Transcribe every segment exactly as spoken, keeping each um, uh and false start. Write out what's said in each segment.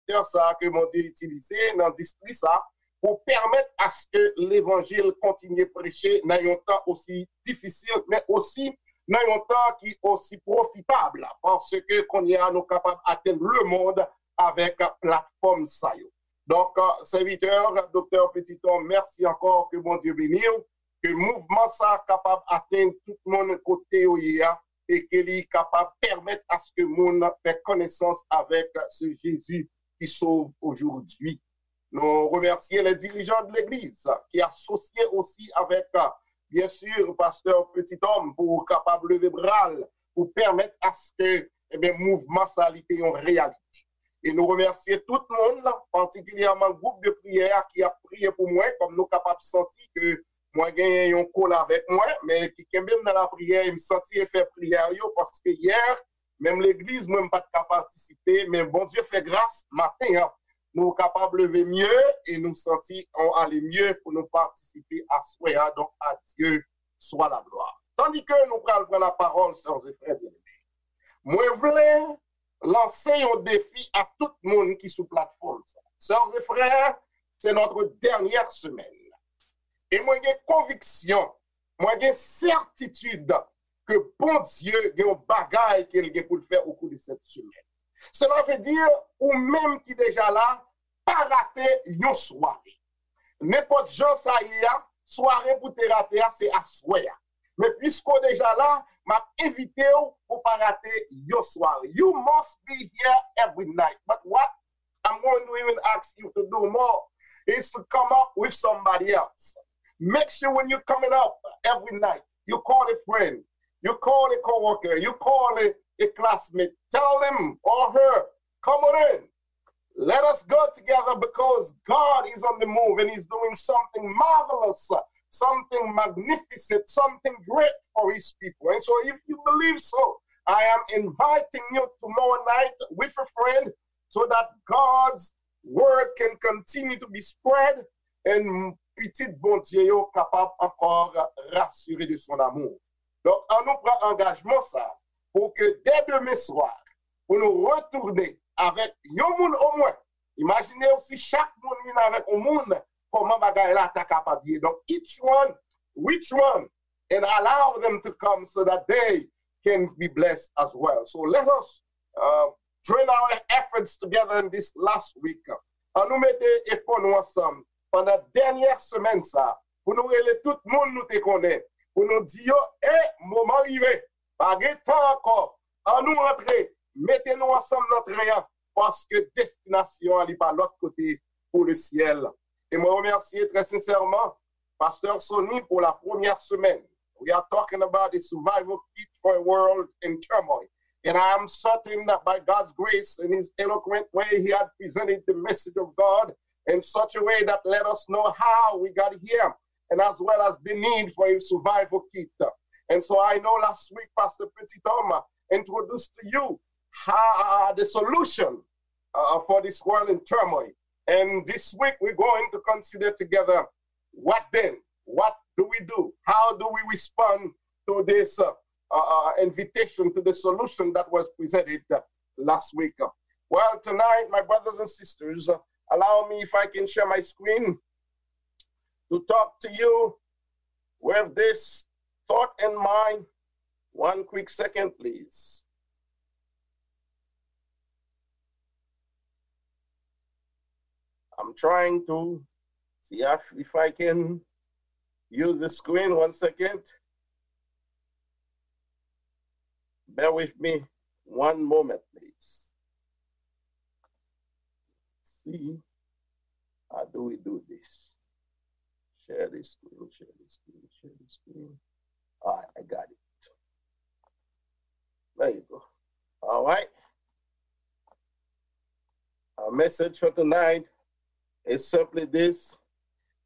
sektè sa a ke Bondye itilize nan distri sa a pou pèmèt aske levanjil kontinye preche nan yon tan osi difisil, men osi nan yon tan ki osi pwofitab, paske kounye a nou kapab atenn lemonn avèk platfòm sa yo. Donk, sèvitè, Doktè Petiton, mèsi ankò, ke Bondye beni w, ke mouvman sa a kapab atenn tout moun kote yo ye a, e ke li kapab pèmèt aske moun fè konesans avèk se Jezi ki sov ojodwi. Nou remèsye les dirigeants de l'église ki asosye osi avèk, byen si, pastè Petit Homme pou kapab leve bra l pou pèmèt aske, ebyen, mouvman sa li te yon reyalite. E nou remèsye tout moun, patikilyèman gwoup de priyè a ki ap priye pou mwen, kòm nou kapab santi ke mwen genyen yon kol avèk mwen, men ki kenbe m nan lapriyè e m santi efè priyè yo, paske yè, menm legliz mwen, m pa t ka patisipe, men Bondye fè gras, maten an, nou kapab leve mye e nou santi on ale mye pou nou patisipe aswè a. Donk, à Dieu soit la gloire. Tandis que nou pral pran la parole, sœurs et frères bien-aimés, mwen vle lanse yon defi a tout moun ki sou platfòm sa. Sœurs et frères, c'est notre dernière semaine. E mwen gen konviksyon, mwen gen sètitid ke Bondye gen yon bagay ke l gen pou l fè au cours de cette semaine. Cela veut dire, ou menm ki deja la, pa rate yon sware. Nenpòt jan sa ye a, sware pou te rate a, se aswè a. Men piske w deja la, m ap envite w pou pa rate yon sware. You must be here every night. But what I'm going to even ask you to do more is to come up with somebody else. Make sure when you're coming up every night, you call a friend, you call a coworker, you call a, a classmate, tell them or her, come on in. Let us go together because God is on the move and He's doing something marvelous, something magnificent, something great for His people. And so, if you believe so, I am inviting you tomorrow night with a friend so that God's word can continue to be spread and pitit Bondye yo kapab ankò rasire de son amour. Donk, an nou pran angajman sa pou ke dè demen swa, pou nou retounen avèk yon moun omwen. Imajine w si chak moun vin avèk yon moun, kòman bagay la ta kapab ye. Donk, each one, which one, and allow them to come so that they can be blessed as well. So let us uh, join our efforts together in this last week. An nou mete efò nou ansanm pandan dènyè semèn sa pou nou rele tout moun nou te konnen, pou nou di yo, e, moman rive, pa gen tan ankò, an nou antre, mete nou ansanm nan tren an, paske destinasyon an li pa lòt kote pou le syèl. E mwen remèsye trè sensèman Pasteur Sony pour la première semaine. We are talking about the survival kit for a world in turmoil. And I am certain that by God's grace, in his eloquent way, he had presented the message of God in such a way that let us know how we got here, and as well as the need for a survival kit. And so I know last week, Pastor Petit Homme introduced to you how, uh, the solution uh, for this world in turmoil. And this week, we're going to consider together what then? What do we do? How do we respond to this uh, uh, uh, invitation, to the solution that was presented uh, last week? Well, tonight, my brothers and sisters, uh, allow me, if I can share my screen, to talk to you with this thought in mind. One quick second, please. I'm trying to see if, if I can use the screen. One second. Bear with me one moment, please. See, how do we do this? Share the screen, share the screen, share the screen. All right, I got it. There you go. All right. Our message for tonight is simply this: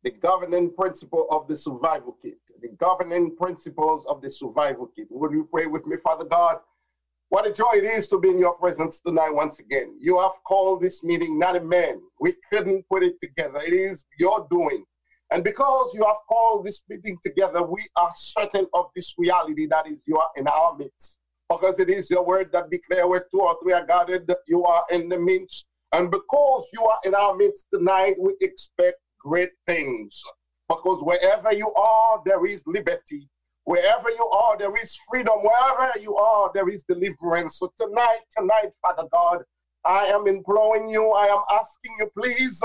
the governing principle of the survival kit. The governing principles of the survival kit. Would you pray with me? Father God, what a joy it is to be in your presence tonight once again. You have called this meeting, not a man. We couldn't put it together. It is your doing. And because you have called this meeting together, we are certain of this reality that is, you are in our midst. Because it is your word that declare, where two or three are gathered, you are in the midst. And because you are in our midst tonight, we expect great things. Because wherever you are, there is liberty. Wherever you are, there is freedom. Wherever you are, there is deliverance. So tonight, tonight, Father God, I am imploring you, I am asking you, please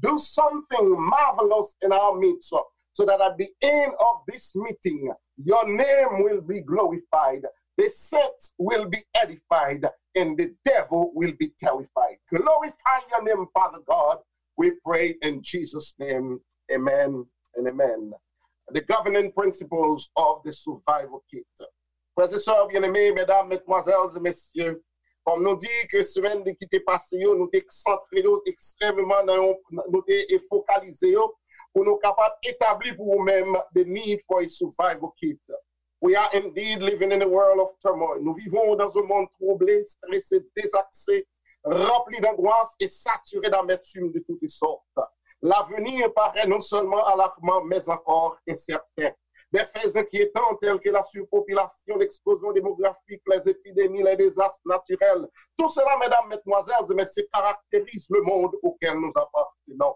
do something marvelous in our midst, so that at the end of this meeting, your name will be glorified, the saints will be edified, and the devil will be terrified. Glorify your name, Father God. We pray in Jesus' name. Amen and amen. The governing principles of the survival kit. Frè e sè byeneme, medam, medmwazèl e mesye, kòm nou di ke semèn de ki te pase yo, nou te santre yo ekstrèmeman nan yon, nou te fokalize yo pou nou kapab etabli pou ou menm the need for a survival kit. We are indeed living in a world of turmoil. Nous vivons dans un monde troublé, stressé, désaxé, rempli d'angoisse et saturé d'amertume de toutes sortes. L'avenir paraît non seulement alarmant, mais encore incertain. Des faits inquiétants tels que la surpopulation, l'explosion démographique, les épidémies, les désastres naturels, tout cela, mesdames, mesdemoiselles et messieurs, caractérise le monde auquel nous appartenons.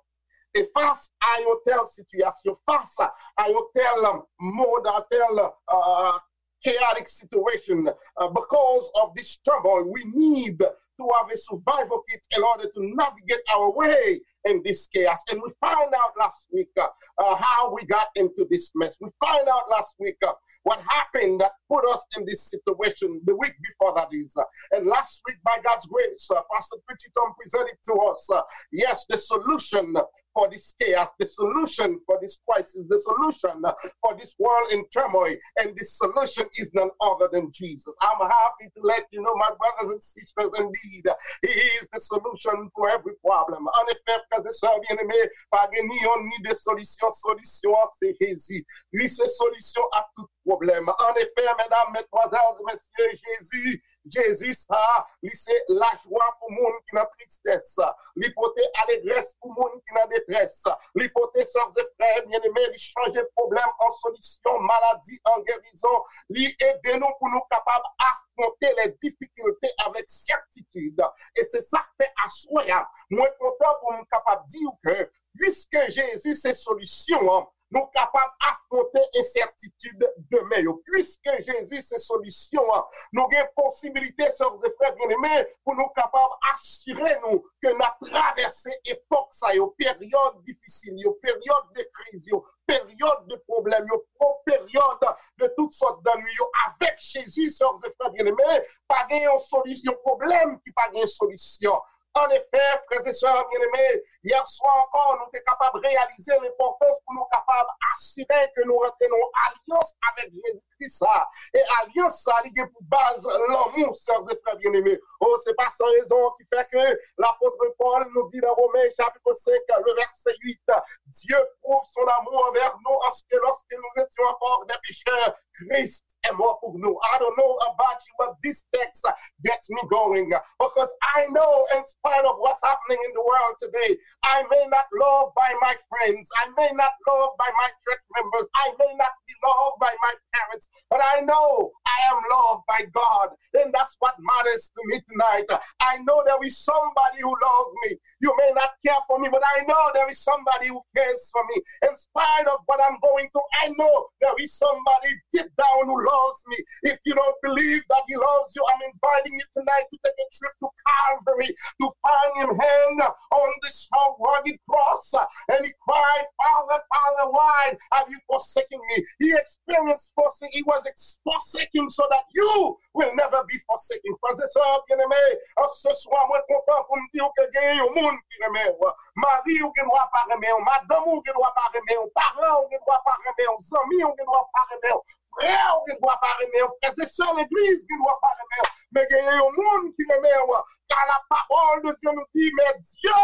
Et face à une telle situation, face à un tel monde, à tel uh, chaotic situation, uh, because of this turmoil, we need to have a survival kit in order to navigate our way in this chaos. And we find out last week uh, uh, how we got into this mess. We find out last week uh, what happened that put us in this situation the week before that is. Uh, and last week, by God's grace, uh, Pastor Petit Tom presented to us, uh, yes, the solution for this chaos, the solution for this crisis, the solution for this world in turmoil, and this solution is none other than Jesus. I'm happy to let you know, my brothers and sisters, indeed, He is the solution for every problem. An efè, frè e sè byeneme, pa gen ni yonn ni de solisyon. Solisyon an se Jezi. Li se solisyon a tout pwoblèm. An efè, medam, medmwazèl e mesye, Jezi Jezi sa, li se lajwa pou moun ki nan tristès. Li pote alegrès pou moun ki nan detrès. Li pote sè e frè byeneme, li chanje pwoblèm an solisyon, maladi an gerizon. Li ede nou pou nou kapab afwonte les difficultés avec certitude. E se sa k fè aswè a, mwen kontan pou m kapab di w ke, piske Jezi se solisyon an, nou kapab afwonte ensètitid demen yo. Piske Jezi se solisyon an, nou gen posibilite, sè e frè byeneme, pou nou kapab asire nou ke n ap travèse epòk sa yo, peryòd difisil yo, peryòd de kriz yo, peryòd de pwoblèm yo, po-, peryòd de tout sòt dannwi yo. Avèk Jezi, sè e frè byeneme, pa gen yon solisyon, pwoblèm ki pa gen solisyon. An efè, frè e sè byeneme, yè swa ankò, nou te kapab reyalize lenpòtans pou nou kapab asire ke nou rantre nan yon alyans avèk Jezikri sa. E alyans sa, li gen pou baz lanmou, sè e frè byeneme. O, se pa san rezon ki fè ke lapot Pòl nou di nan Women chapit senk, le vèsè uit, Dieu prouve son amour envers nous, en ce que lorsque nous étions encore des pécheurs, Christ est mort pour nous. I don't know about you, but this text gets me going. Because I know, in spite of what's happening in the world today, I may not loved by my friends. I may not loved by my church members. I may not be loved by my parents. But I know I am loved by God. And that's what matters to me tonight. I know there is somebody who loves me. You may not care for me, but I know there is somebody who cares for me. In spite of what I'm going through, I know there is somebody deep down who loves me. If you don't believe that He loves you, I'm inviting you tonight to take a trip to Calvary to find Him hang on this rugged cross. And He cried, "Father, Father, why have you forsaken me?" He experienced forsaking. He was ex- forsaken so that you will never be forsaken. Frè e sè byeneme, an se swa, mwen kontan pou m di w ke gen yon moun ki renmen w. Mari w gen dwa pa renmen w, madanm ou gen dwa pa renmen w, paran w gen dwa pa renmen w, zanmi w gen dwa pa renmen w, frè w gen dwa pa renmen w, frè e sè legliz gen dwa pa renmen w, men gen yon moun ki renmen w. Car la parole de Dieu nous dit, mais Dieu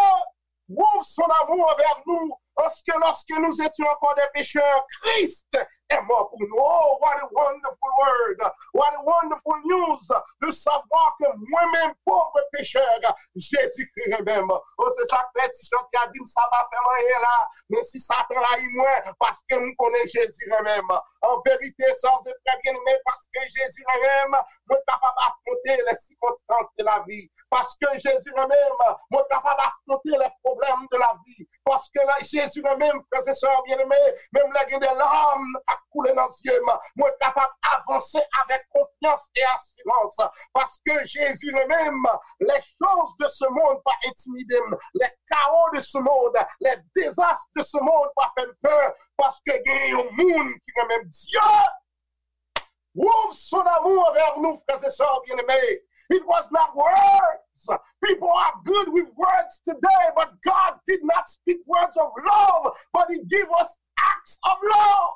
prouve son amour envers nous, parce que lorsque nous étions encore des pécheurs, Christ est mort pour nous. Oh, what a wonderful word. What a wonderful news de savoir que moi-même, pauvre pécheur, Jésus-Christ renmen m. Oh, se sa k fè ti chante a di m sa pa fè m anyen la. Men si Satan rayi mwen, paske m konnen Jezi renmen m. An verite, sè e frè byeneme, paske Jezi renmen m, mwen kapab afwonte les circonstances de la vie. Paske Jezi renmen m, mwen kapab afwonte les problèmes de la vie. Paske Jezi renmen m, frè e sè byeneme, menm lè gen de lame k ap koule nan zye m, mwen kapab avanse avèk konfyans e asirans. Paske Jezi renmen m, les choses de ce monde pa entimide m, les chaos de ce monde, les désastres de ce monde pa fè m pè, paske gen yon moun ki renmen m. Dye prouve son amour envè nou, frè e sè byeneme. It was not words. People are good with words today, but God did not speak words of love, but He gave us acts of love.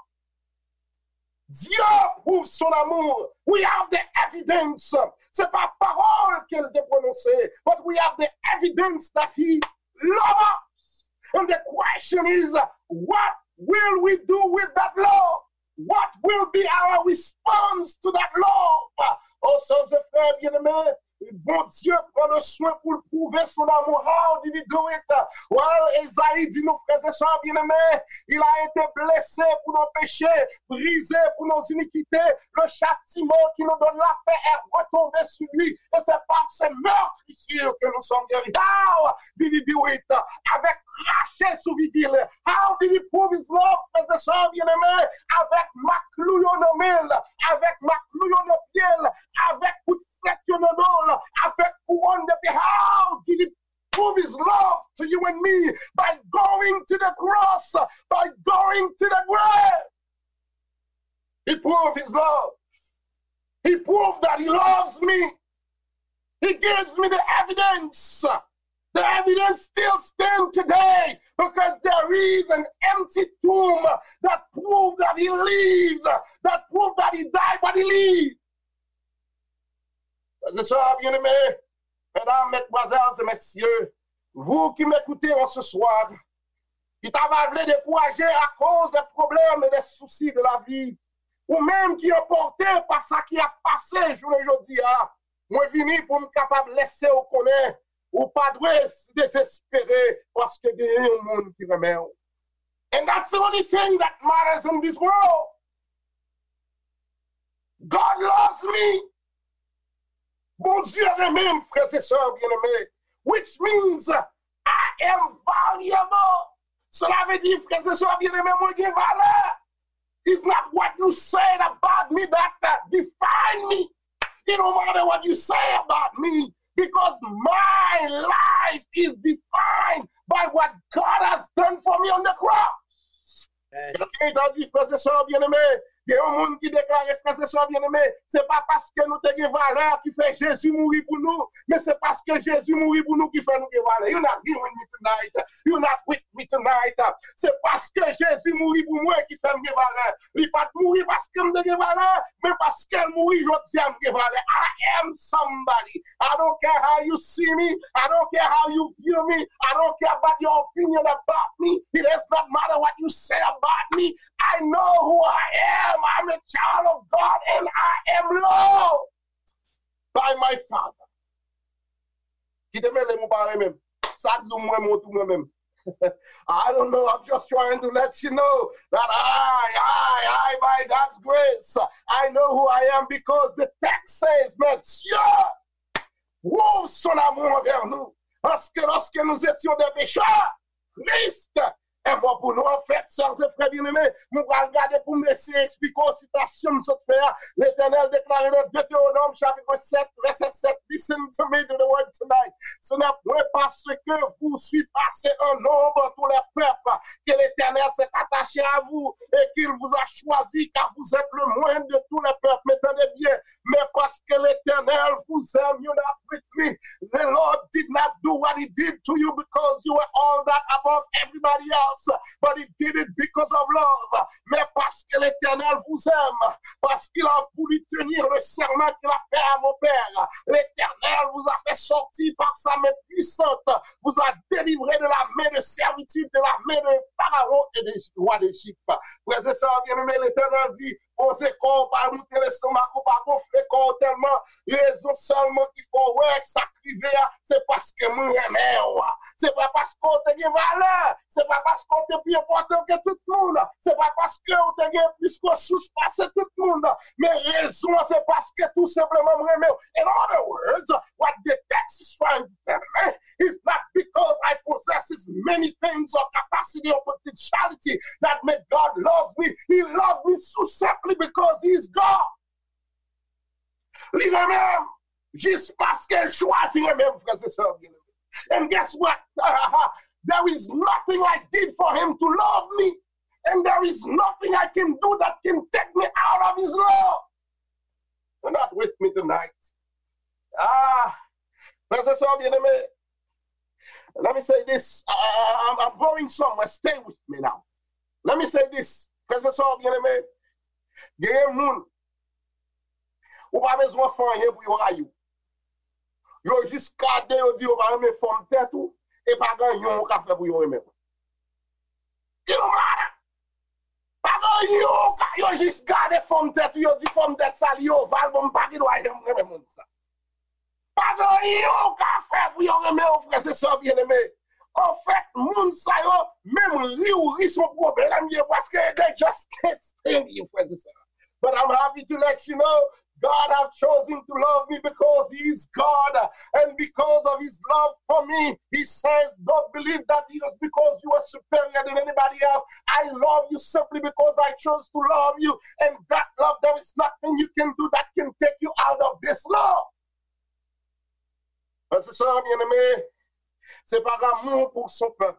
Dieu prouve son amour. We have the evidence. Se pa pawòl ke l te pwononse, but we have the evidence that He loves us. And the question is, what will we do with that love? What will be our response to that love? Oh, sè e frè byeneme, Bondye pran le swen pou l pwouve son amour. How did he do it? Well, Ezayi di nou, frè e sè byeneme, il a été blessé pour nos péchés, brisé pour nos iniquités. Le châtiment qui nous donne la paix est retombé sur lui. Et c'est par ses meurtrissures que nous sommes guéris. How did he do it? Avèk krache sou figi l. How did he prove his love, frè e sè byeneme? Avèk mak klou yo nan men l, avèk mak klou yo nan pye l, avèk kout flèt yo nan do l, avèk kouwòn de pyè. How did he prove his love to you and me? By going to the cross, by going to the grave. He proved his love. He proved that he loves me. He gives me the evidence. The evidence still stands today because there is an empty tomb that proves that he lives, that proves that he died, but he lives. Frè e sè byeneme, medam, mesdemoiselles et messieurs, vous qui m'écoutez en ce soir, ki ta va vle dekouraje akoz de pwoblèm e de sousi de la vi, ou menm ki anpòte pa sa ki ap pase jounen jodi a, mwen vini pou m kapab lese w konnen ou pa dwe dezespere paske genyen yon moun ki renmen w. And that's the only thing that matters in this world. God loves me. Bondye renmen m, frè e sè byeneme. Which means I am valuable. Cela veut dire, frè e sè byeneme, mwen gen valè. It's not what you said about me that uh, define me. It don't matter what you say about me because my life is defined by what God has done for me on the cross. Amen. Gen moun ki di, frè e sè byeneme, gen yon moun ki deklare, frè e sè byeneme, se pa paske nou te gen valè ki fè Jezi mouri pou nou, men se paske Jezi mouri pou nou ki fè nou gen valè. You're not hearing me tonight. You're not with me tonight. Se paske Jezi mouri pou mwen ki fè m gen valè. Li pa t mouri paske m te gen valè, men paske l mouri jodi a m gen valè. I am somebody. I don't care how you see me. I don't care how you view me. I don't care about your opinion about me. It does not matter what you say about me. I know who I am. I'm a child of God and I am loved by my Father. Kite mele m ou pa renmen m. Sa k di w m renmen w tou mwen menm. I don't know, I'm just trying to let you know that I, I, I, by God's grace, I know who I am because the text says, Matye prouve son amour envè nou. Paske lorsque nous étions des pécheurs, Christ est mort pour nous. Anfèt, sè e frè byeneme, mwen pral gade pou m eseye eksplike w sitasyon m sot fè a. Letènèl deklare nan Detewonòm chapit sèt, vèsè sèt, listen to me to the word tonight. Ce n'est point parce que vous surpassez en nombre tous les peuples que l'Éternel s'est attaché à vous et qu'il vous a choisi, car vous êtes le moindre de tous les peuples. Mais tendez bien, mais parce que l'Éternel vous aime, you're not with me. The Lord did not do what he did to you because you were all that above everybody else, but he did it because of love. Mais parce que l'Éternel vous aime, parce qu'il a voulu tenir le serment qu'il a fait à vos pères, l'Éternel vous a fait sortir par sa main puissante, vous a délivré de la main de servitude, de la main de Pharaon et des rois d'Égypte. Frè e sè byeneme, Letènèl di, poze kò w, pa moute lestomak ou, pa gonfle kò w tèlman. Rezon sèlman ki fè w wè sa k rive a, se paske mwen renmen w. Se pa paske w te gen valè. Se pa paske w te pi enpòtan ke tout moun. Se pa paske w te gen plis resous pase tout moun. Men rezon an, se paske tou senpleman m renmen w. In other words, what the text is trying to tell me is not because I possess many things or capacity or potentiality that make God love me. He loved me so simply because He is God. Li renmen m jis paske l chwazi renmen m, frè e sè byeneme. And guess what? There is nothing I did for him to love me. And there is nothing I can do that can take me out of his love. You're not with me tonight. Ah, frè e sè byeneme, let me say this. I, I, I'm, I'm going somewhere. Stay with me now. Let me say this. Frè e sè byeneme, genyen moun, ou pa bezwen fè anyen pou yo rayi w. Yo jis gade, yo di yo pa renmen fòm tèt ou, e pa gen anyen ou ka fè pou yo renmen w. It don't matter. Pa gen anyen ou ka, yo jis gade fòm tèt ou, yo di fòm tèt sa li oval, bon, m pa gen dwa janm renmen moun sa. Pa gen anyen ou ka fè pou yo renmen w, frè e sè byeneme. Anfèt, moun sa yo, menm ri ou ri se yon pwoblèm ye, paske they just can't stand you, frè e sè. But I'm happy to let you know, God have chosen to love me because He is God. And because of His love for me, He says, don't believe that it is because you are superior than anybody else. I love you simply because I chose to love you. And that love, there is nothing you can do that can take you out of this love. Frè e sè byeneme, se pa amou pou son pèp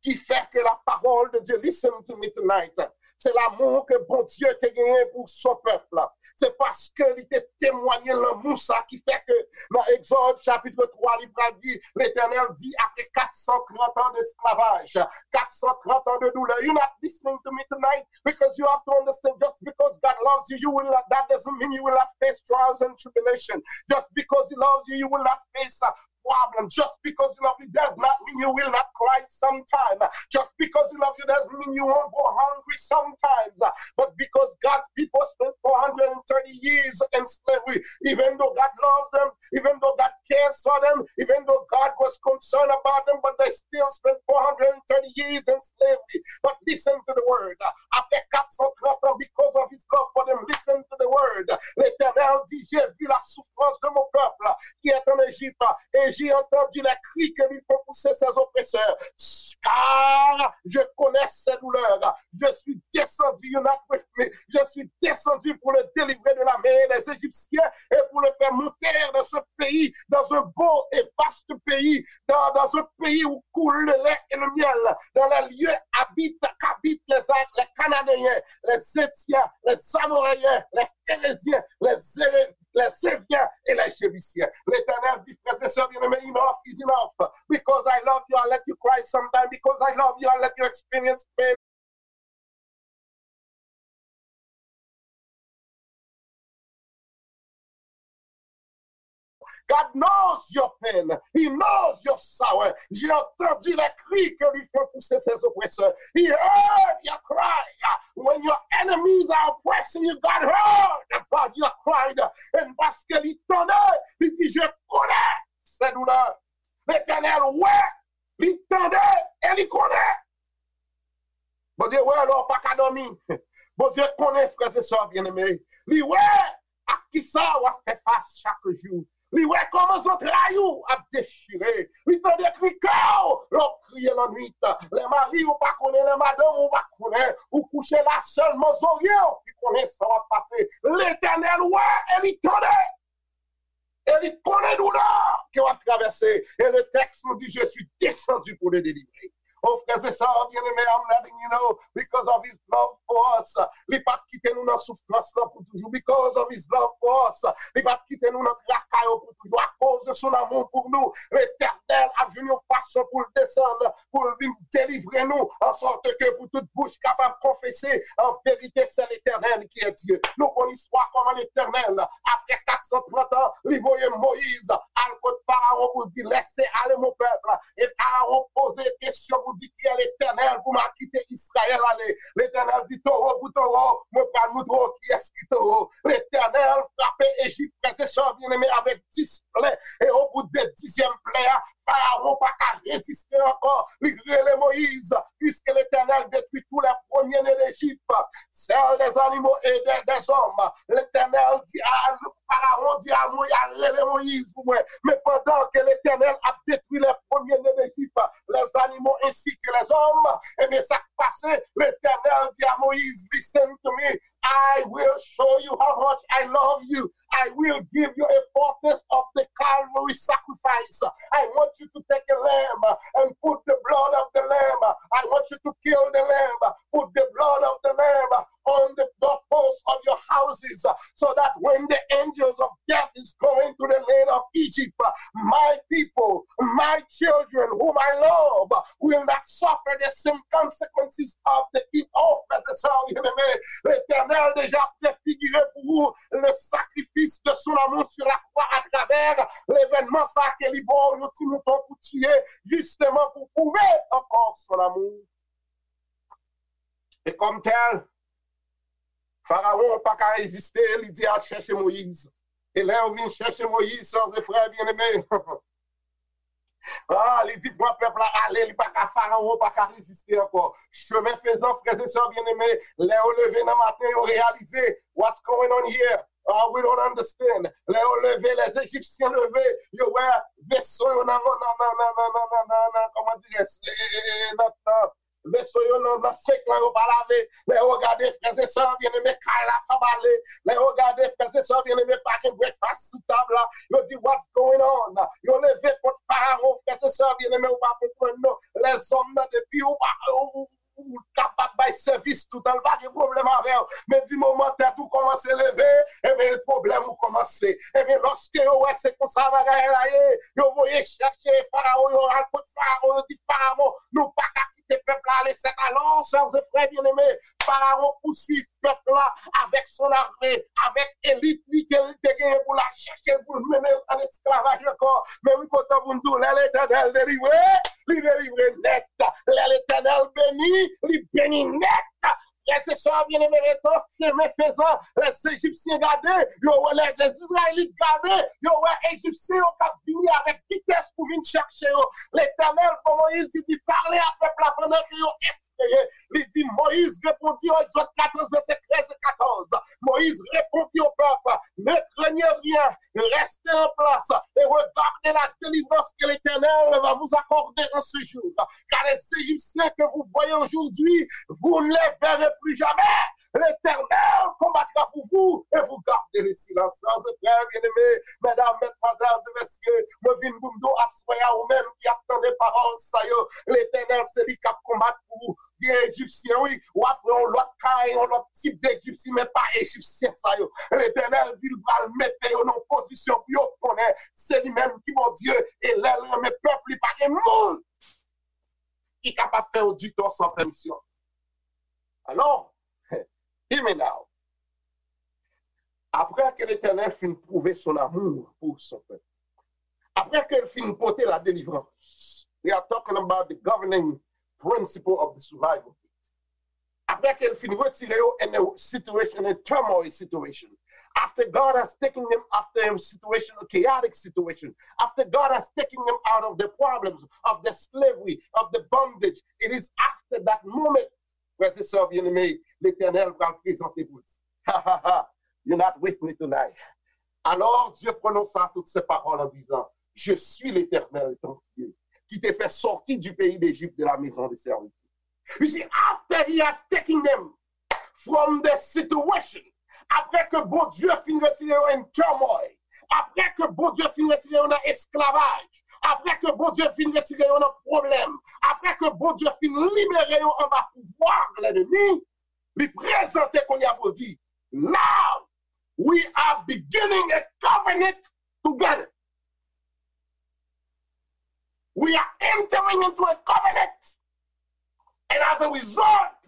ki fè ke la parole de Dieu, listen to me tonight, se lanmou ke Bondye te genyen pou son pèp la. Se paske li te temwaye lanmou sa ki fè ke nan Egzòd chapit twa, li pral di, Letènèl di, apre kat san trant an desklavaj, kat san trant an de doulè, you not listening to me tonight, because you have to understand, just because God loves you, you will not, that doesn't mean you will not face trials and tribulation. Just because He loves you, you will not face a problem. Just because He loves you does not mean you will not cry sometime. Just because He loves you doesn't mean you won't go hungry sometimes. But because God's people spent four hundred thirty years in slavery, even though God loves them, even though God cares for them, even though God was concerned about them, but they still spent four hundred thirty years in slavery. But listen to the word. Après quatre cent trente ans, because of His love for them, listen to the word. L'Éternel dit, j'ai vu la souffrance de mon peuple qui est en Égypte, et j'ai entendu les cris que lui font pousser ses oppresseurs. Car je connais ses douleurs. Je suis descendu, you're not with me. Je suis descendu pour le délivrer de la main des Égyptiens et pour le faire monter dans ce pays, dans un beau et vaste pays, dans, dans un pays où coule le lait et le miel, dans les lieux habitent, qu'habitent les, les Cananéens, les Hétiens, les Amoréens, les Phéréziens, les Éré-, les Éviens et les Jébusiens. L'Éternel dit, frères et sœurs bien-aimés, enough is enough. Because I love you, I let you cry sometimes. Because I love you, I let you experience pain. God knows your pain. He knows your sorrow. J'ai entendu les cris que lui font pousser ses oppresseurs. He heard your cry. When your enemies are oppressing you, God heard about your cry. And paske li tande, li di, je connais ses douleurs. Letènèl wè, li tande, e li konnen. Bondye wè lè w pa ka dòmi. Bondye konnen, frè e sè byeneme. Li wè ak kisa w ap fè fas chak jou. Li wè kòman zantray ou ap dechire. Li tande kri kè w lè w kriye lannwit. Lè mari w pa konnen, lè madanm ou pa konnen, ou kouche la, sèlman zorye w ki konnen sa w ap pase. Letènèl wè e li tande. E li konnen doulè ke w ap travèse. E le texte nous dit, je suis descendu pour le délivrer. Oh, frè e sè byeneme, I'm letting you know, because of His love for us. Li p ap kite nou nan soufrans lan pou toujou. Because of His love for us. Li p ap kite nou nan traka yo pou toujou. Akoz de son amour pour nous, Letènèl ap jwenn yon fason pou l desann, pou l vin delivre nou, en sorte que pour toute bouche capable confesser, en vérité, c'est l'Éternel qui est Dieu. Nou konn istwa kòman Letènèl, apre kat san trant an, li voye Moyiz al kot Farawon pou l di, laissez aller mon peuple. E Farawon poze kesyon pou di kiyès Letènèl pou m al kite Izrayèl ale. Letènèl di, towo pou towo, mwen pral montre w kiyès ki towo. Letènèl frape Ejip, frè e sè byeneme, avèk dis plè. E o bout de dizyèm plè a, Farawon pa ka reziste ankò. Li rele Moyiz, puisque l'Éternel détruit tous les premiers-nés d'Égypte, celles des animaux et des, des hommes. Letènèl di a Farawon di a Moyiz, al rele Moyiz pou mwen. Men pandan ke Letènèl ap detwi les premiers-nés d'Égypte, les animaux ainsi que les hommes, ebyen, sa k pase, Letènèl di a Moyiz, listen to me, I will show you how much I love you. I will give you a foretaste of the Calvary sacrifice. I want you to take a lamb and put the blood of the lamb. I want you to kill the lamb, put the blood of the lamb on the doorposts of your houses, so that when the angels of death is going to the land of Egypt, my people, my children, whom I love, will not suffer the same consequences of the evil. Oh, frè e sè byeneme, Letènèl deja prefigire pou ou le sacrifice de son amour sur la croix à travers l'événement sa ke li ba w yon ti mouton pou tiye, justement pou pwouve ankò son amour. E kòm tèl, Farawon pa ka reziste, li di al chèche Moyiz. E lè yo vin chèche Moyiz, sè e frè byeneme, ah, li di pran pèp la ale, li pa ka, Farawon pa ka reziste ankò. Chemen fezan, frè e sè byeneme, lè yo leve nan maten, yo reyalize, what's going on here? Ah, we don't understand. Lè yo leve, les Égyptiens leve, yo wè veso yo nan, nan, nan, nan, nan, nan, nan, nan, nan, kòman dirè, nan, nan, veso yo nan, nan senk lan yo pa lave. Lè yo gade, frè e sè byeneme, kay la pa bale. Lè yo gade, frè e sè byeneme, pa gen breakfast sou tab la. Yo di, what's going on? Yo leve kont Farawon, frè e sè byeneme, ou pa konprann non. Lèzòm nan, depi ou pa, ou, ou kapab bay sèvis toutan, l pa gen pwoblèm avè w. Men di moman tèt ou kòmanse leve, ebyen, pwoblèm ou kòmanse. Ebyen, lòske yo wè se konsa bagay la ye, yo voye chèche Farawon, yo al kot Farawon, yo di, Farawon, nou pa ka kite pèp la ale. C'est alors, sè e frè byeneme, Farawon pouswiv pèp la avèk son arme, avèk elit li ke li te genyen pou l al chèche l, pou l mennen l an esklavaj ankò. Men wi, kontan pou n di w, lè Letènèl delivre, li delivre nèt. Lè Letènèl beni, li beni nèt. Frè e sè byeneme, retan chemen fezan, lè Ejipsyen gade, yo wè, lè, lè Izrayelit gade, yo wè Ejipsyen yo k ap vini avèk vitès pou vin chèche yo. Letènèl, kòman Moyiz di, pale a pèp la pandan ke yo espere. Li di, Moïse répondit, Exode quatorze, verset treize et quatorze. Moïse répondit au peuple, ne craignez rien, restez en place et regardez la délivrance que l'Éternel va vous accorder en ce jour. Car les Égyptiens que vous voyez aujourd'hui, vous ne les verrez plus jamais. L'Éternel combattra pour vous et vous gardez le silence. Frères et sœurs bien-aimés, mesdames, mesdemoiselles et messieurs, mwen vin pou m di w aswè a, ou menm ki ap tande pawòl sa yo, Letènèl se li k ap konbat pou ou. Gen Ejipsyen, wi, w ap wè yon lòt kay, yon lòt tip de Ejipsyen, men pa Ejipsyen sa yo. Letènèl di l pral mete yo nan yon pozisyon pou yo konnen se li menm ki Bondye, e lè l renmen pèp li, pa gen moun ki kapab fè yo ditò san pèmisyon. Alò, hear me now. Après que l'Éternel fin prouvé son amour pour son peuple, après que l fin pote la délivrance, we are talking about the governing principle of the survival. Après que l fin retire yo in a situation, in a turmoil situation, after God has taken them after a situation, a chaotic situation, after God has taken them out of the problems, of the slavery, of the bondage, it is after that moment, frères et sœurs bien-aimés, Letènèl pral prezante pou l. Ha, ha, ha. You're not with me tonight. Alors Dieu prononça toutes ces paroles en disant, Je suis l'Éternel, ton Dieu, qui te fait sortir du pays d'Égypte, de la maison de servitude. You see, after he has taken them from the situation, apre ke Bondye fin retire yo in turmoil, apre ke Bondye fin retire yo nan esklavaj, apre ke Bondye fin retire yo nan pwoblèm, apre ke Bondye fin libere yo anba pouvwa lènmi, li prezante kounye a pou l di, Now we are beginning a covenant together. We are entering into a covenant. And as a result,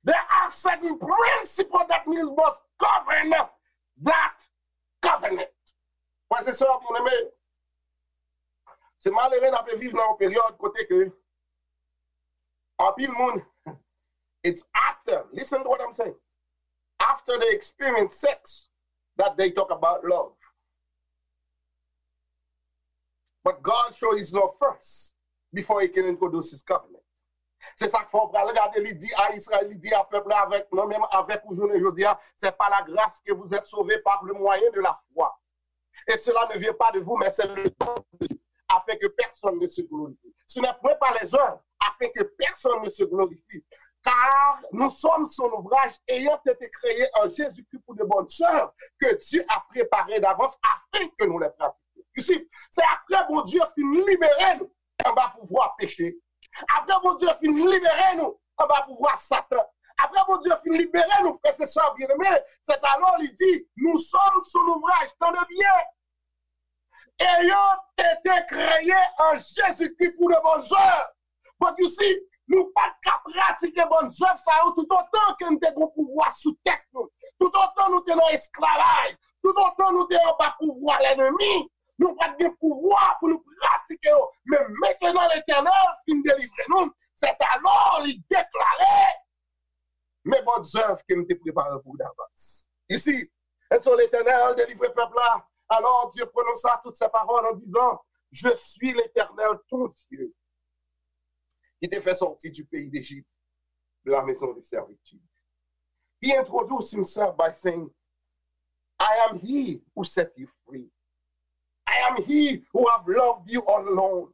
there are certain principles that must govern that covenant. Frères et sœurs bien-aimés, se malere n ap viv nan yon peryòd kote ke Anpil moun, it's after, listen to what I'm saying, after they experience sex that they talk about love. But God show his love first before he can introduce his covenant. Se sa k fè w pral gade, li di a Izrayèl, li di a pèp la, avèk, mwen menm avèk ou jounen jodi a, c'est par la grâce que vous êtes sauvés par le moyen de la foi. Et cela ne vient pas de vous, mais c'est le don de Dieu, afin que personne ne se glorifie. Ce n'est point par les œuvres, afin que personne ne se glorifie. Car nous sommes son ouvrage, ayant été créés en Jésus-Christ pour de bonnes œuvres que Dieu a préparées d'avance afin que nous les pratiquions. You see, se apre Bondye fin libere nou anba pouvwa peche. Apre Bondye fin libere nou anba pouvwa Satan. Apre Bondye fin libere nou, frè e sè byeneme, c'est alors li di, nous sommes son ouvrage, tande byen. Ayant été créés en Jésus-Christ pour de bonnes œuvres. But you see, nou pa t ka pratike bòn zèv sa yo toutotan ke n te gen pouvwa sou tèt nou. Toutotan nou te nan esklavaj, toutotan nou te anba pouvwa lènmi, nou pa t gen pouvwa pou nou pratike yo. Men mentnan Letènèl fin delivre nou, c'est alors li deklare, mes bonnes œuvres que m te prepare pou w davans. Isi, et so Letènèl delivre pèp la. Alors Dieu prononça toutes ces paroles en disant, Je suis l'Éternel, ton Dieu, qui te fait sortir du pays d'Égypte, de la maison de servitude. He introduced himself by saying, I am he who set you free. I am he who have loved you all along.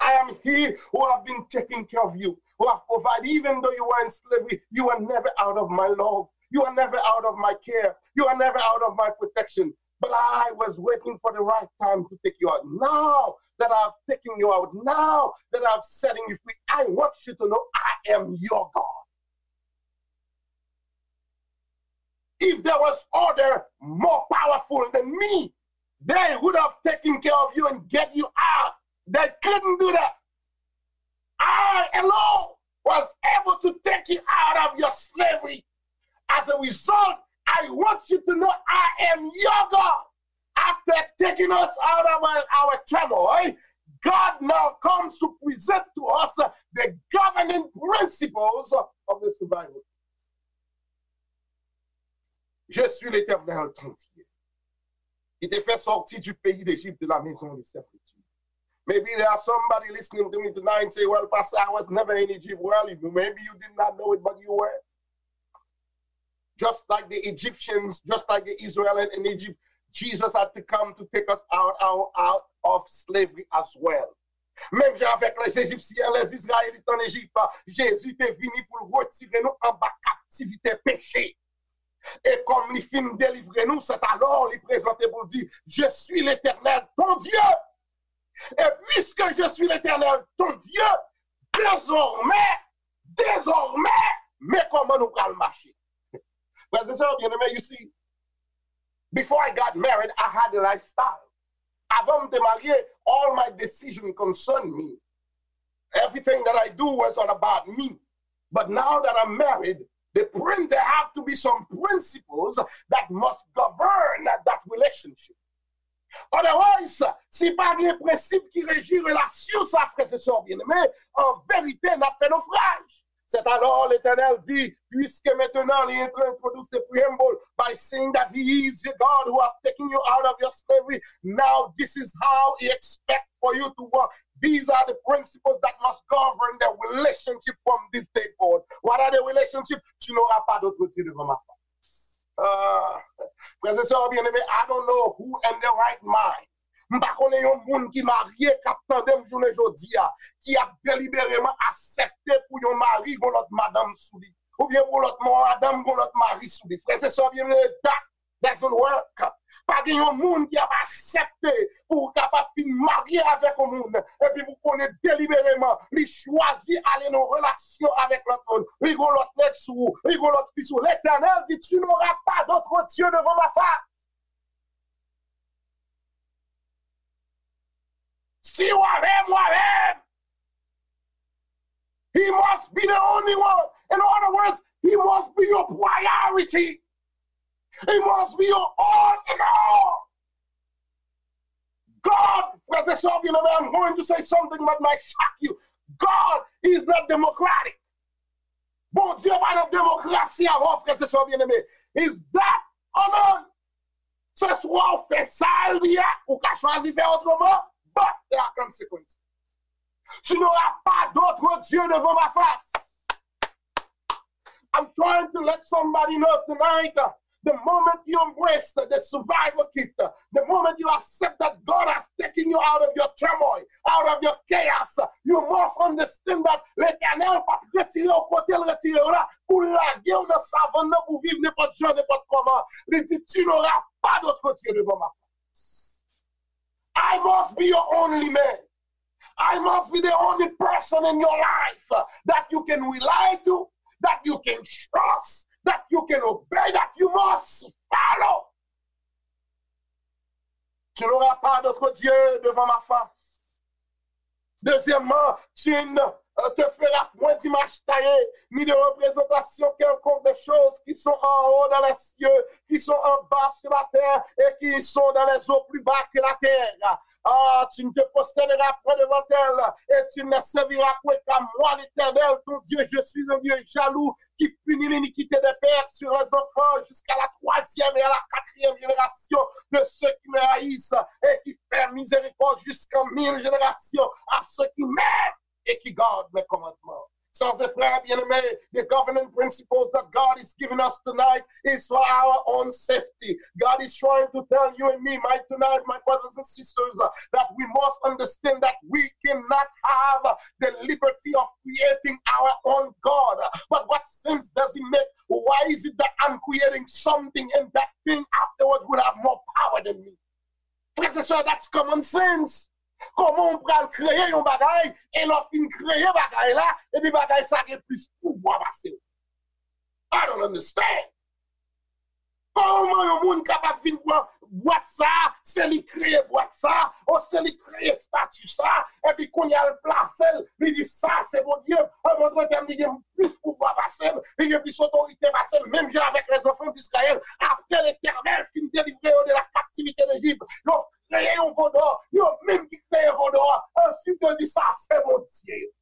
I am he who have been taking care of you, who have provided, even though you were in slavery, you were never out of my love. You were never out of my care. You were never out of my protection. But I was waiting for the right time to take you out. Now that I've taken you out, now that I've setting you free, I want you to know I am your God. If there was other more powerful than me, they would have taken care of you and get you out. They couldn't do that. I alone was able to take you out of your slavery. As a result, I want you to know I am your God. After taking us out of our, our turmoil, God now comes to present to us the governing principles of the survival. Je suis l'Éternel, ton Dieu, qui te fait sortir du pays d'Égypte, de la maison de servitude. Maybe there are somebody listening to me tonight and say, well, Pastor, I was never in Egypt. Well, maybe you did not know it, but you were. Just like the Egyptians, just like the Israel in, in Egypt, Jesus had to come to take us out, out, out of slavery as well. Menm jan avèk les Égyptiens, les Israélites en Égypte, Jezi te vini pou l retire nou anba kaptivite peche. E kòm li fin delivre nou, c'est alors li prezante pou l di, Je suis l'Éternel, ton Dieu. Et puisque je suis l'Éternel, ton Dieu, désormais, désormais, men kòman nou pral mache. Frè e sè byeneme, you see, before I got married, I had a lifestyle. Avan m te marye, all my decision concern me. Everything that I do was all about me. But now that I'm married, the prin- there have to be some principles that must govern that relationship. Otherwise, si pa gen prensip ki reji relasyon sa, frè e sè byeneme, an verite, n ap fè nofraj. C'est alors l'Éternel dit, puisque maintenant il introduce the preamble by saying that he is the God who have taken you out of your slavery, now this is how he expect for you to walk. These are the principles that must govern the relationship from this day forward. What are the relationship? Tu n'auras pas d'autre Dieu devant ma face. Ah, frè e sè byeneme, I don't know who in the right mind. M pa konnen yon moun ki marye k ap tande m jounen jodi a, ki ap delibereman aksepte pou yon mari gon lòt madanm sou li, oubyen pou lòt madanm gon lòt mari sou li. Frè e sè byeneme, that doesn't work. Pa gen yon moun ki ap aksepte pou w kapab fin marye avèk yon moun, epi pou konnen delibereman li chwazi ale nan relasyon avèk lòt moun. Li gon lòt nèg sou ou, li gon lòt fi sou ou. Letènèl di, tu n'auras pas d'autre Dieu devant ma face. Si w avè m, w avè m. He must be the only one. In other words, he must be your priority. He must be your all in all. God, frè e sè byeneme, I'm going to say something that might shock you. God is not democratic. Bondye pa nan demokrasi avè w, frè e sè byeneme. Is that or not? Se swa w fè sa l di a, ou ka chwazi fè otreman, but there are consequences. Tu n'auras pas d'autre Dieu devant ma face. I'm trying to let somebody know tonight, uh, the moment you embrace the survival kit, uh, the moment you accept that God has taken you out of your turmoil, out of your chaos, you must understand that Letènèl p ap retire w kote l retire w la pou l lage w nan savann nan pou viv nenpòt jan, nenpòt kòman. Li di, tu n'auras pas d'autre Dieu devant ma face. I must be your only man. I must be the only person in your life that you can rely to, that you can trust, that you can obey, that you must follow. Tu n'auras pas d'autre Dieu devant ma face. Deuxièmement, tu ne euh, te feras point d'image taillée, ni de représentation quelconque des choses qui sont en haut dans les cieux, qui sont en bas sur la terre et qui sont dans les eaux plus bas que la terre. Ah, tu ne te prosterneras point devant elle et tu ne serviras point qu'à moi, l'Éternel, ton Dieu. Je suis un Dieu jaloux qui punit l'iniquité des pères sur les enfants jusqu'à la troisième et à la quatrième génération de ceux qui me haïssent et qui fait miséricorde jusqu'en mille générations à ceux qui m'aiment et qui gardent mes commandements. Sœurs et frères bien-aimés, the governing principles that God is giving us tonight is for our own safety. God is trying to tell you and me, my tonight, my brothers and sisters, that we must understand that we cannot have the liberty of creating our own God. But what sense does it make? Why is it that I'm creating something and that thing afterwards will have more power than me? Frè e sè, that's common sense. Kòman w pral kreye yon bagay, e lè w fin kreye bagay la, epi bagay sa gen plis pouvwa pase w? I don't understand. Kòman yon moun kapab vin pran bwat sa, se li kreye bwat sa, o se li kreye estati sa, epi kounye a l plase l, li di sa se Bondye, an dòt tèm li gen plis pouvwa pase m, li gen plis otorite pase m, menm jan avèk lèzanfan d'Izrayèl, apre Letènèl fin delivre yo de la captivité d'Égypte, yo kreye yon vodò, yo menm ki kreye vodò a, answit yo di sa se Bondye yo.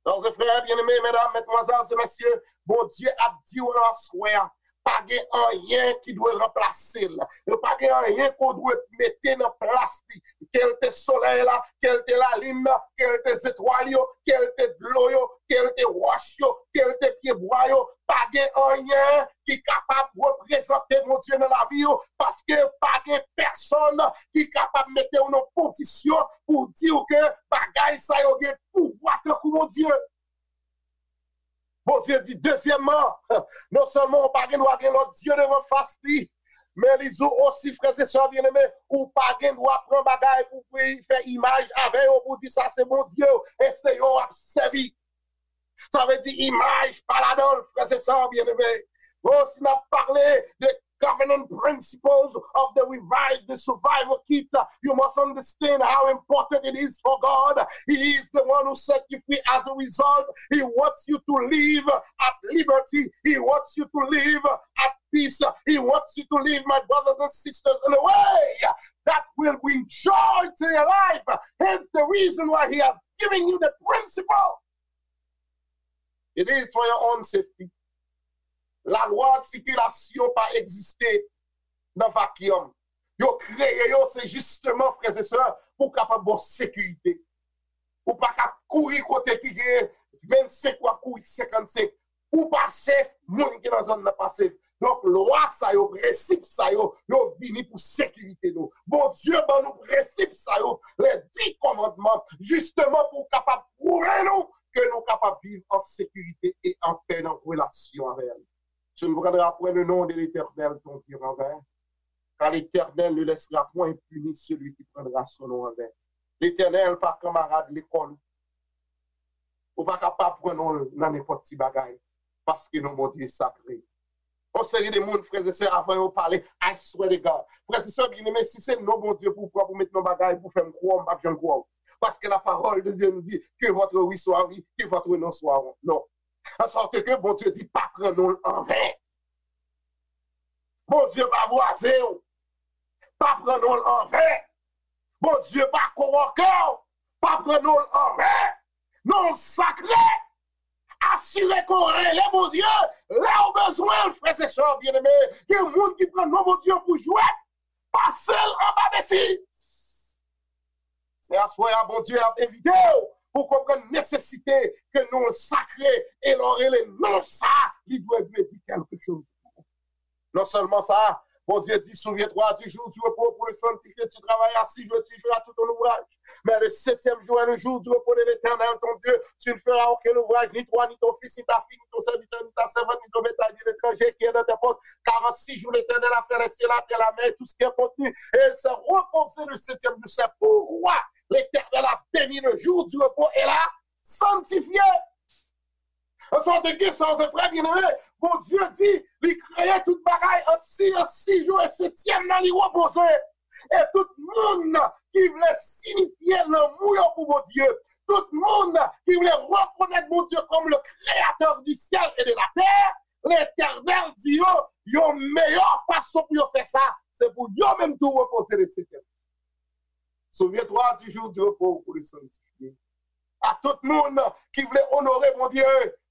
Sè e frè byeneme, medam, madmwazèl e mesye, Bondye ap di w nan aswè a, pa gen anyen ki dwe ranplase l. Yo pa gen anyen ke w dwe mete nan plas li. Ke l te solèy la, ke l te lalin nan, ke l te zetwal yo, ke l te dlo yo, ke l te wòch yo, ke l te pyebwa yo, pa gen anyen ki kapab reprezante Bondye nan lavi w, paske pa gen pèsonn ki kapab mete w nan pozisyon pou di w ke bagay sa yo gen pouvwa tankou Bondye. Bondye di, dezyèmman, non sèlman ou pa gen dwa gen lòt dye devan fas li, men li di w osi, frè e sè byeneme, ou pa gen dwa pran bagay pou, pou fè imaj avè yo, pou di sa se Bondye w, e se yo w ap sèvi. Sa vle di imaj pa ladan l, frè e sè byeneme. Oh, si n ap pale de covenant principles of the revive, the survival kit, you must understand how important it is for God. He is the one who set you free. As a result, He wants you to live at liberty. He wants you to live at peace. He wants you to live, my brothers and sisters, in a way that will bring joy to your life. Hence the reason why He has given you the principle. It is for your own safety. Lalwa sikilasyon pa egziste nan vakyòm. Yo kreye yo, se jisteman, frè e sè, pou kapab ba w sekirite. Ou pa ka kouri kote ki gen vennsenk, w ap kouri senkannsenk. Ou pa safe, moun ki nan zòn nan pa safe. Donk, lwa sa yo, prensip sa yo, yo vini pou sekirite nou. Bondye ban nou prensip sa yo, les dix commandements, jisteman pou w kapab pwouve nou ke nou kapab viv an sekirite e an pè nan relasyon avè l. Tu ne prendras point le nom de l'Éternel, ton Dieu, en vain, car l'Éternel ne laissera point impuni celui qui prendra son nom en vain. Letènèl pa kanmarad lekòl ou. Ou pa ka pa pran non l nan nenpòt ti bagay, paske non Bondye sakre. Yon seri de moun, frè e sè, avan yo pale, I swear to God. Frè e sè byeneme, si se non Bondye pou w pran pou met nan bagay, pou fè m kwè w, m p ap janm kwè w. Paske la parole de Dieu nous dit que votre oui soit oui, que votre non soit non. An sòt ke Bondye di pa pran non l anven. Bondye pa vwaze w, pa pran non l anven. Bondye pa kowòke w, pa pran non l anven. non l sakre. Asire ke w rele Bondye lè w bezwen l, frè e sè byeneme. Gen moun ki pran non Bondye pou jwèt, pase l anba betiz. Se aswè a Bondye ap envite w pou w konprann nesesite ke non l sakre, e lè w rele non sa, li dwe vle di kèlke choz. Non sèlman sa, Bondye di, souviens-toi du jour du repos pour le sanctifier, tu travaillas six jours et tu feras tout ton ouvrage. Mais le septième jour est le jour du repos de l'Éternel, ton Dieu. Tu ne feras aucun ouvrage, ni toi, ni ton fils, ni ta fille, ni ton serviteur, ni ta servante, ni ton bétail, ni l'étranger qui est dans tes portes. Car en six jours, l'Éternel a fait les cieux, la terre, la mer et tout ce qui est contenu. Et il s'est reposé le septième jour. C'est pourquoi l'Éternel a béni le jour du repos et l'a sanctifié. An sòti gen sa, se frè byeneme, Bondye di, li kreye tout bagay an sis, an sis jou, e setyèm nan li repoze. E tout moun ki vle sinifye lanmou yo pou Bondye, tout moun ki vle rekonèt Bondye kòm le créateur du ciel et de la terre, Letènèl di yo, yon meyè fason pou yo fè sa, se pou yo menm tou repoze le setyèm. Souviens-toi du jour du repos pour le sanctifier. A tout moun ki vle onore Bondye,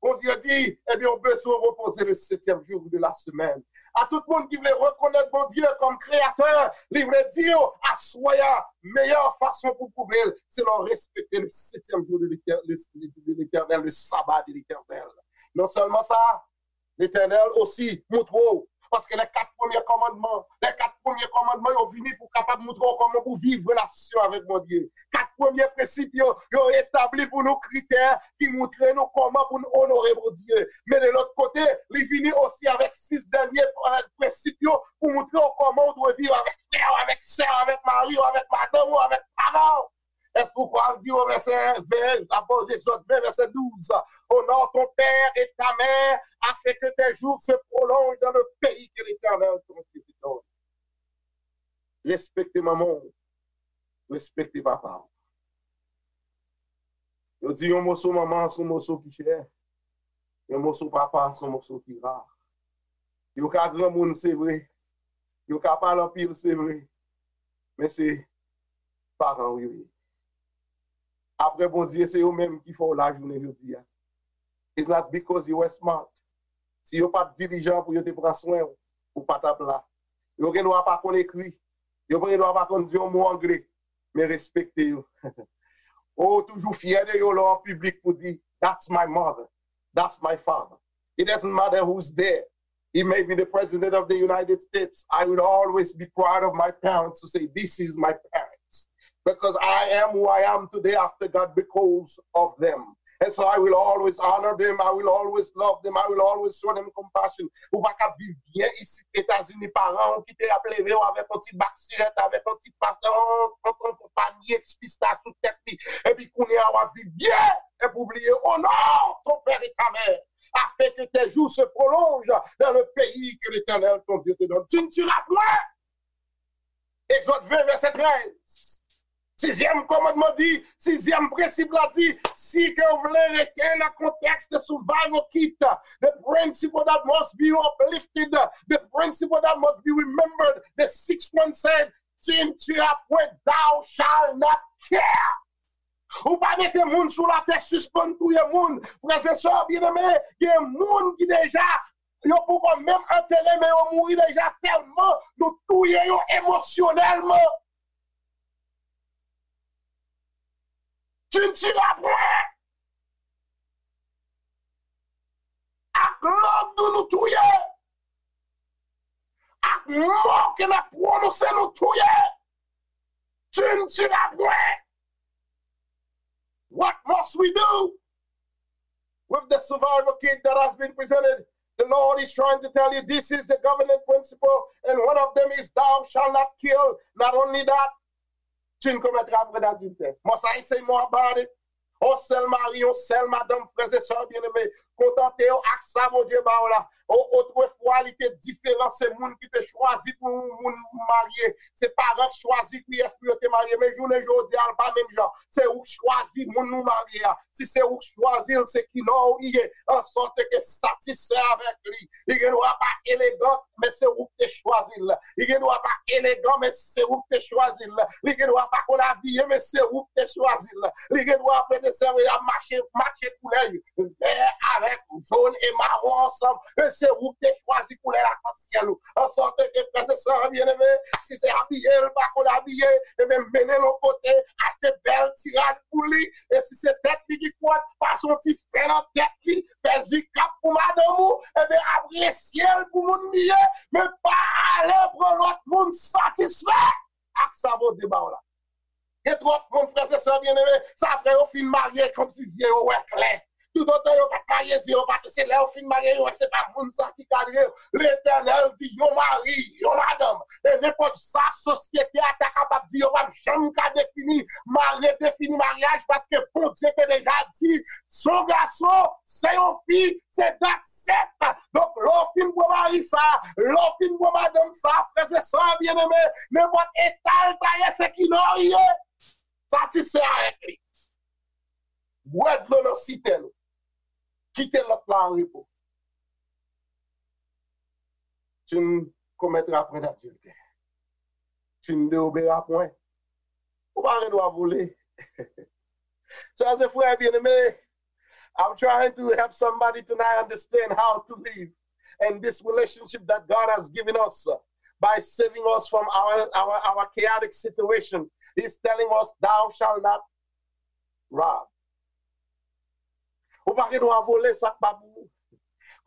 Bondye di, ebyen, w bezwen repoze le septième jour de la semaine. A tout moun ki vle rekonèt Bondye kòm kreyatè, li vle di w, aswè a, meyè fason pou pwouve l, se lè w respekte le septième jour de l'Éternel, le, de l'Éternel, le sabbat de l'Éternel. Non sèlman sa, Letènèl osi montre w. Paske lè kat premye kòmandman, lè kat premye kòmandman yo vini pou kapab montre w kòman pou viv relasyon avèk Bondye. Kat premye prensip yo, yo etabli pou nou kritè ki montre nou kòman pou n onore Bondye. Men de lòt kote, li vini osi avèk sis dènye, eh, prensip yo pou montre w kòman w dwe viv avèk frè w, avèk sè w, avèk mari w, avèk madanm ou, avèk paran w. Èske w kwè l di w vèsè ven, apre Egzòd ven, vèsè douz, honore ton père et ta mère, afin que tes jours se prolongent dans le pays que l'Éternel, ton Dieu, te donne. Respekte manman w, respekte papa w. Yo di yon moso manman se yon moso ki chè, yon moso papa se yon moso ki ra. Yo ka granmoun, se vre. Yo ka pale anpil, se vre. Men se paran w yo ye. Apre Bondye, se yo menm ki fè w la jounen jodi a. It's not because you were smart. Si yo pa t dilijan pou yo te pran swen w, ou pa t ap la. Yo gen dwa pa konn ekri. Yo gen dwa pa konn di yon mo angle. Men respekte yo. Ou toujou fyè de yo lè w an piblik pou di, that's my mother, that's my father. It doesn't matter who's there. He may be the president of the United States. I will always be proud of my parents to say, this is my parents. Because I am who I am today after God because of them. And so I will always honor them. I will always love them. I will always show them compassion. Ou pa ka viv byen isit Etazini, paran w ki te ap leve w avèk yon ti bak sirèt, avèk yon ti pas, yon, yon, yon panye pistach sou tèt li. Epi kounye a w ap viv byen. Epi w bliye, honore ton père et ta mère, afin que tes jours se prolongent dans le pays que l'Éternel, ton Dieu, te donne. Tu ne tueras point. Egzòd ven, vèsè trèz. Sizyèm kòmandman di, sizyèm prensip la di, si ke w vle rete nan kontèks de survival kit, the principle that must be uplifted, the principle that must be remembered, the sixth one said, tu ne tueras point, thou shalt not kill. Ou pa mete moun sou latè sispann touye moun. Frè e sè byeneme, gen moun ki deja, yo poko menm antere, men yo mouri deja tèlman nou touye yo emosyonèlman. Tu ne tueras point. Ak lang nou, nou touye. Ak mo ke n ap pwononse, nou touye. Tu ne tueras point. What must we do with the survival kit that has been presented? The Lord is trying to tell you this is the governing principle, and one of them is thou shalt not kill. Not only that, tu ne commettras point d'adultère. Must I say more about it? Yon sèl mari, yon sèl madanm, frè e sè byeneme, kontante w ak sa Bondye ba w la. O, otrefwa, li te diferan. Se moun ki te chwazi pou yon moun marye. Se paran k chwazi kiyès pou yo te marye. Men jounen jodi a, l pa menm jan. Se ou k chwazi moun ou marye a. Si se ou k chwazi l, se ki non ou ye. An sòt ke satisfè avèk li. Li gen dwa pa elegan, men se ou k te chwazi l. Li gen dwa pa elegan, men se ou k te chwazi l. Li gen dwa pa konn abiye, men se ou k te chwazi l. Li gen dwa, frè e sè, ap mache, matche koulè yo. Vè avèk jòn e mawon ansanm, men se ou k te chwazi koulè lakansyèl ou. An sòt ke, frè e sè byeneme, si se abiye l pa konn abiye, ebyen mennen l yon kote, achte bèl ti rad pou li, e si se tèt li ki kwòt, pase yon ti fè nan tèt li, fè zikap pou madanm ou, ebyen apresye l pou moun li ye, men pa ale pran lòt moun satisfè ak sa Bondye ba w la. Gen twòp moun, frè e sè byeneme, sa apre yo fin marye, kòmsi zye yo wè klè. Toutotan yo pa t marye, zye yo pa t, se lè yo fin marye, yo wè se pa moun sa ki kadre yo. Letènèl di yon mari, yon madanm, e nenpòt sa sosyete a ta kapab di, yo p ap janm ka defini, mare, defini maryaj, paske Bondye te deja di, se yon gason, se yon fi, se dat sèt. Donk, lè w fin pran mari sa, lè w fin pran madanm sa, frè e sè byeneme, nenpòt eta l ta ye, se ki non li ye. Satisfè avèk li. Bwè dlo nan sitèn ou. Kite lòt la an repo. Tu ne commettras point d'adultère. Tu ne déroberas point. Ou pa gen dwa vole. Sè e frè byeneme, I'm trying to help somebody tonight understand how to live in this relationship that God has given us, uh, by saving us from our, our, our chaotic situation. He's telling us, thou shalt not rob. Ou pa gen dwa vole sa k pa pou ou.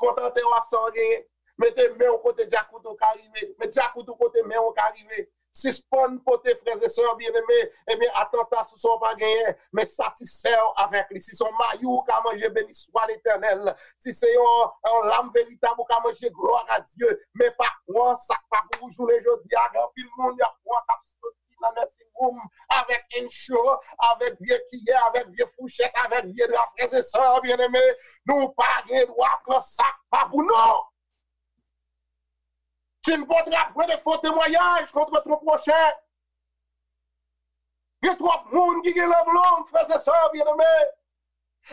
Kontante w ak sa w genyen. Mete men w kote djakout ou ka rive. Met djakout ou kote men w ka rive. Sispann pote, frè e sè byeneme, ebyen, atanta sou sa w pa genyen, men satisfè w avèk li. Si se yon mayi w ka manje, beni swa Letènèl. Si se yon, yon lam veritab ou ka manje, glwa a Dye. Men pa pran sa k pa pou ou jounen jodi a. Gen anpil moun, y ap pran k ap soti nan nursing home avèk Ensure, avèk vye kiyè, avèk vye fouchèt, avèk vye dra, frè e sè byeneme. Nou pa gen dwa pran sa k pa pou nou. Tu ne porteras point de faux témoignages contre ton prochain. Gen twòp moun ki gen lang long, frè e sè byeneme.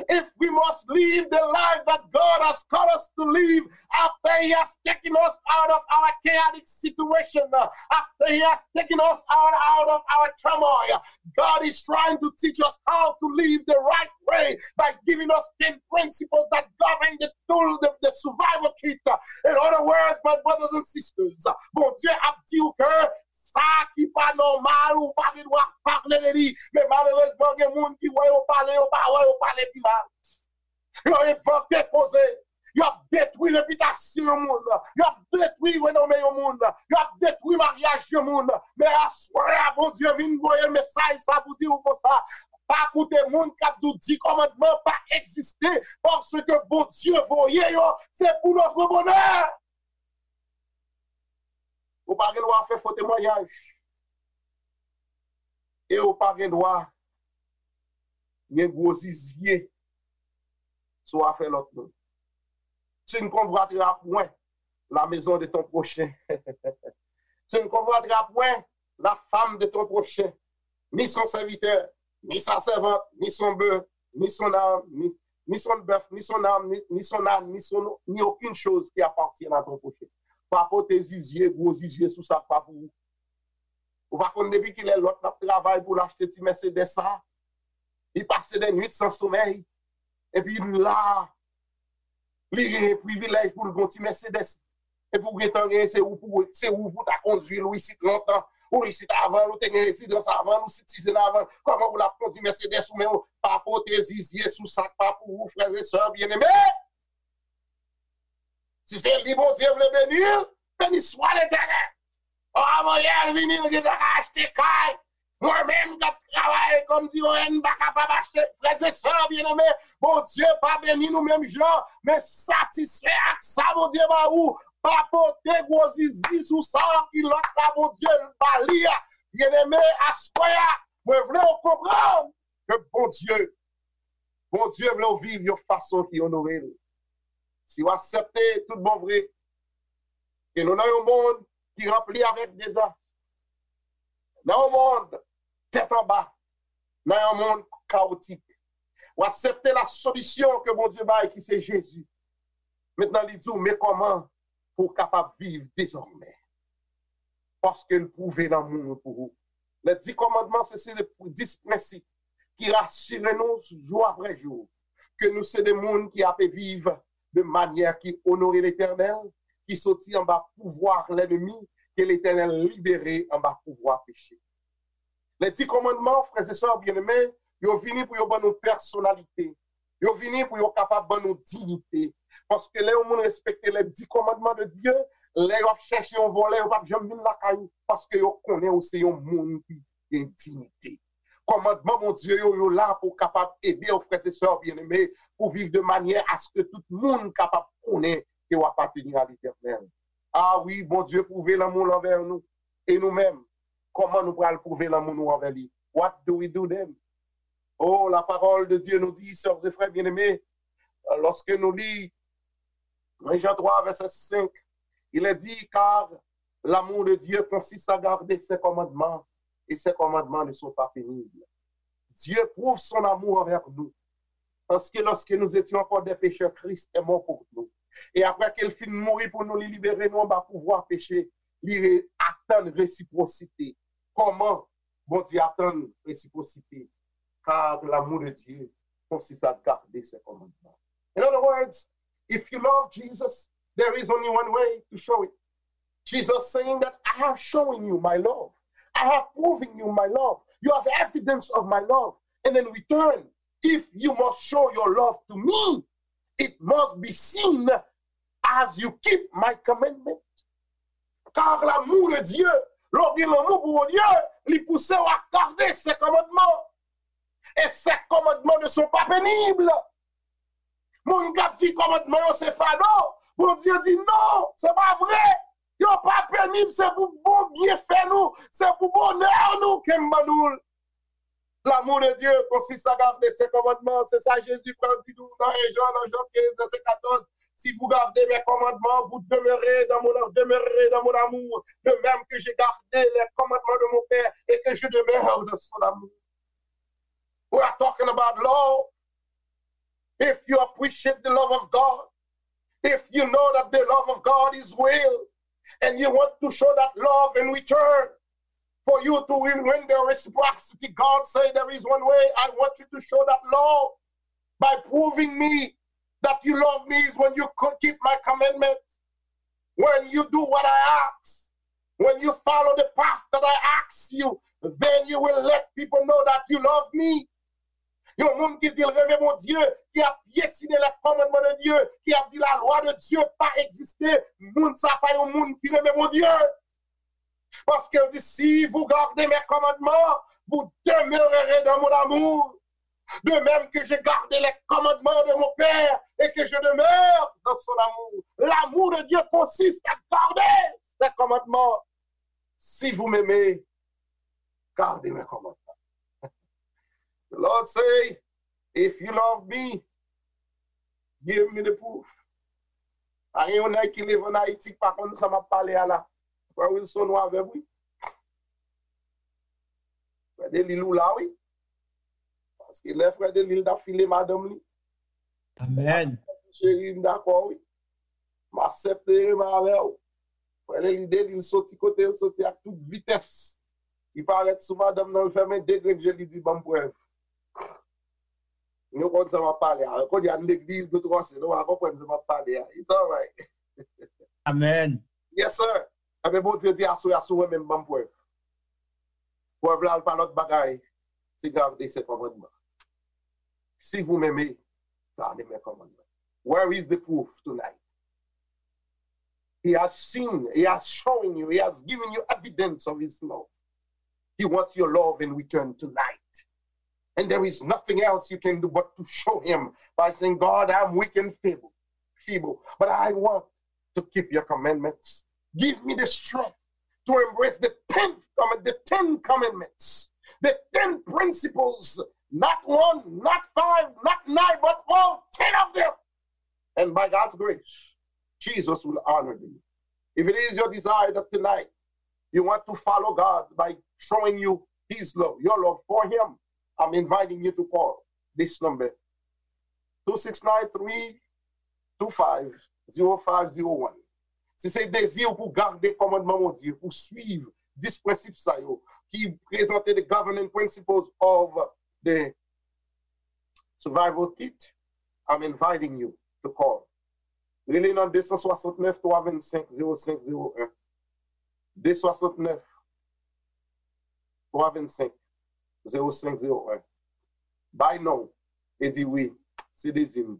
If we must live the life that God has called us to live, after He has taken us out of our chaotic situation, uh, after He has taken us out, out of our turmoil, God is trying to teach us how to live the right way by giving us ten principles that govern the tool, the, the survival kit. In other words, my brothers and sisters, Bondye ap di w ke sa ki pa nòmal, ou pa gen dwa pale de li. Men malerezman, gen moun ki wè yo pale, yo pa wè, yo pale pi mal. Yo envante koze. Y ap detwi repitasyon yon moun. Y ap detwi renome yon moun. Y ap detwi maryaj yon moun. Men aswè a, Bondye vin voye mesaj sa pou di w konsa. Pa koute moun k ap di w di kòmandman pa egziste, paske Bondye voye yo, se pou notre bonheur. Ou pa gen dwa fè fo temwayaj. E ou pa gen dwa gen gwo zizye sou afè lòt moun. Tu ne convoiteras point la maison de ton prochain. Tu ne convoiteras point la femme de ton prochain, ni son serviteur, ni sa servante, ni son bœuf, ni son âne, ni, ni son bœuf, ni son âne, ni, ni son âne, ni son, ni aucune chose qui appartienne à ton prochain. Pa pote zizye, gwo zizye sou sa k pa pou ou. Ou pa konn depi kilè lòt l ap travay pou l achte ti Mercedes sa. Li pase de nuit san somèy. Epi la, li genyen privilèj pou l gon ti Mercedes. Epi w gentan genyen, se ou pou, se ou pou ta kondui l, ou isit lontan. Ou isit avan l, ou te gen rezidans avan l, ou sitizen avan l. Kòman pou l ap kondui Mercedes ou menm? Pa pote zizye sou sa k pa pou ou, frè e sè byeneme. Si se li Bondye vle beni l, beni swa Letènèl. O, avan yè l vini, l gentan ka achte kay. Mwen menm k ap travay kòm di yo, m pa kapab achte. Frè e sè byeneme, Bondye pa beni nou menm jan, men satisfè ak sa Bondye ba ou. Pa pote gwo zizi sou sa ki lòt la Bondye ba li a. Byeneme, aswè a, mwen vle w konprann ke Bondye, Bondye vle w viv yon fason ki onore l. Si w aksepte tout bon vre ke nou nan yon mond ki ranpli avèk dezas, nan yon mond tèt anba, nan yon mond kawotik, w aksepte la solisyon ke Bondye bay ki se Jezi. Mentnan li di w, men kòman pou w kapab viv dezòmè. Paske l pwouve lanmou l pou ou. Les dix commandements, se se dis prensip ki rasire nou jou apre jou ke nou se de moun ki ape viv de manyè ki onore Letènèl, ki soti anba pouvwa lènmi, ke Letènèl libere anba pouvwa peche. Les dix commandements, frè e sè byeneme, yo vini pou yo ban nou pèsonalite. Yo vini pou yo kapab ban nou diyite. Paske lè yon moun respekte les dix commandements de Dieu, lè yo ap chèche yon vòlè, yo p ap janm vin lakay ou, paske yo konnen ou se yon moun ki gen diyite. Kòmandman Bondye yo, yo la pou kapab ede w, frè e sè byeneme, pou viv de manyè aske tout moun kapab konnen ke w apateni a Letènèl. A wi, Bondye pwouve lanmou l anvè nou. E nou menm, kòman nou pral pwouve lanmou nou anvè li? What do we do then? Oh, la parole de Dieu nous dit, sœurs et frères bien-aimés, lorsque nous lisons un Jean trois, verset cinq, il est dit, car l'amour de Dieu consiste à garder ses commandements, et ses commandements ne sont pas pénibles. Dieu prouve son amour envers nous, parce que lorsque nous étions encore des pécheurs, Christ est mort pour nous. E apre ke l fin mouri pou nou, li libere nou anba pouvwa peche, li re- atann resipwosite. Kòman Bondye atann resipwosite? Car l'amour de Dieu consiste à garder ses commandements. In other words, if you love Jesus, there is only one way to show it. Jesus saying that I have shown you my love. I have proven you my love. You have evidence of my love. And in return, if you must show your love to me, it must be seen as you keep my commandment. Car l'amour de Dieu, lè w gen lanmou pou Bondye, li pouse w a gade se kòmandman. E se kòmandman ne sont pas pénibles. Moun k ap di kòmandman yo se fado, Bondye di non, se pa vre. Yo pa penib, se pou bon byenfè nou, se pou bonè nou ke m ban nou l. L'amour de Dieu consiste à garder ses commandements. Se sa Jezi pral di nou nan en Jan, nan Jan kenz, vèsè katòz. Si vous gardez mes commandements, vous demeurez dans mon, demeurerez dans mon amour, de même que j'ai gardé les commandements de mon Père et que je demeure dans son amour. We are talking about love. If you appreciate the love of God, if you know that the love of God is real, and you want to show that love in return, for you to win, win the reciprocity, God said there is one way. I want you to show that love by proving me that you love me is when you co- keep my commandments, when you do what I ask, when you follow the path that I ask you, then you will let people know that you love me. Yon moun ki di l renmen Bondye, ki ap pyetine les commandements de Dieu, ki ap di la loi de Dieu pa egziste, moun sa pa yon moun ki renmen Bondye. Paske l di, si vous gardez mes commandements, vous demeurerez dans mon amour. De même que j'ai gardé les commandements de mon Père et que je demeure dans son amour. L'amour de Dieu consiste à garder ses commandements. Si vous m'aimez, gardez mes commandements. The Lord say, if you love me, give me the proof. Pa gen yon nèg ki leve ann Ayiti ki pa konn sa m ap pale a la. Frè Wilson, ou avè m, wi. Frè Delil, ou la, wi. Paske lè frè Delil t ap file madanm li, Amèn. Cheri, m dakò, wi. M aksepte renmen avè w. Frè Delil, Delil soti kote l soti ak tout vitès. Li parèt sou madanm nan, l fèmen de grenn je, li di, ban m prèv. Nou konn sa m ap pale a. Kounye a, n legliz, nou twò se, nou pa konprann sa m ap pale a. It's alright. Amèn. Yes, sir. Ebyen, Bondye di, aswè a, si w renmen m, ban m prèv. Prèv la, l pa lòt bagay. Se garder ses commandements. Si vous m'aimez, gardez mes commandements. Where is the proof tonight? He has seen, he has shown you, he has given you evidence of his love. He wants your love in return tonight. And there is nothing else you can do but to show him by saying, God, I'm weak and feeble, feeble, but I want to keep your commandments. Give me the strength to embrace the tenth command, the ten commandments, the ten principles, not one, not five, not nine, but all ten of them. And by God's grace, Jesus will honor you. If it is your desire that tonight you want to follow God by showing you His love, your love for Him, I'm inviting you to call this number, two six nine three two five zero five zero one. Si se dezi w pou gade kòmandman Bondye, pou swiv dis prensip sa yo, ki prezante the governing principles of the survival kit, I'm inviting you to call. Rele nan de san swasantnèf twa vennsenk zewo senk zewo en. De san swasantnèf twa vennsenk zewo senk zewo en. Bay non e di wi, se dezi m.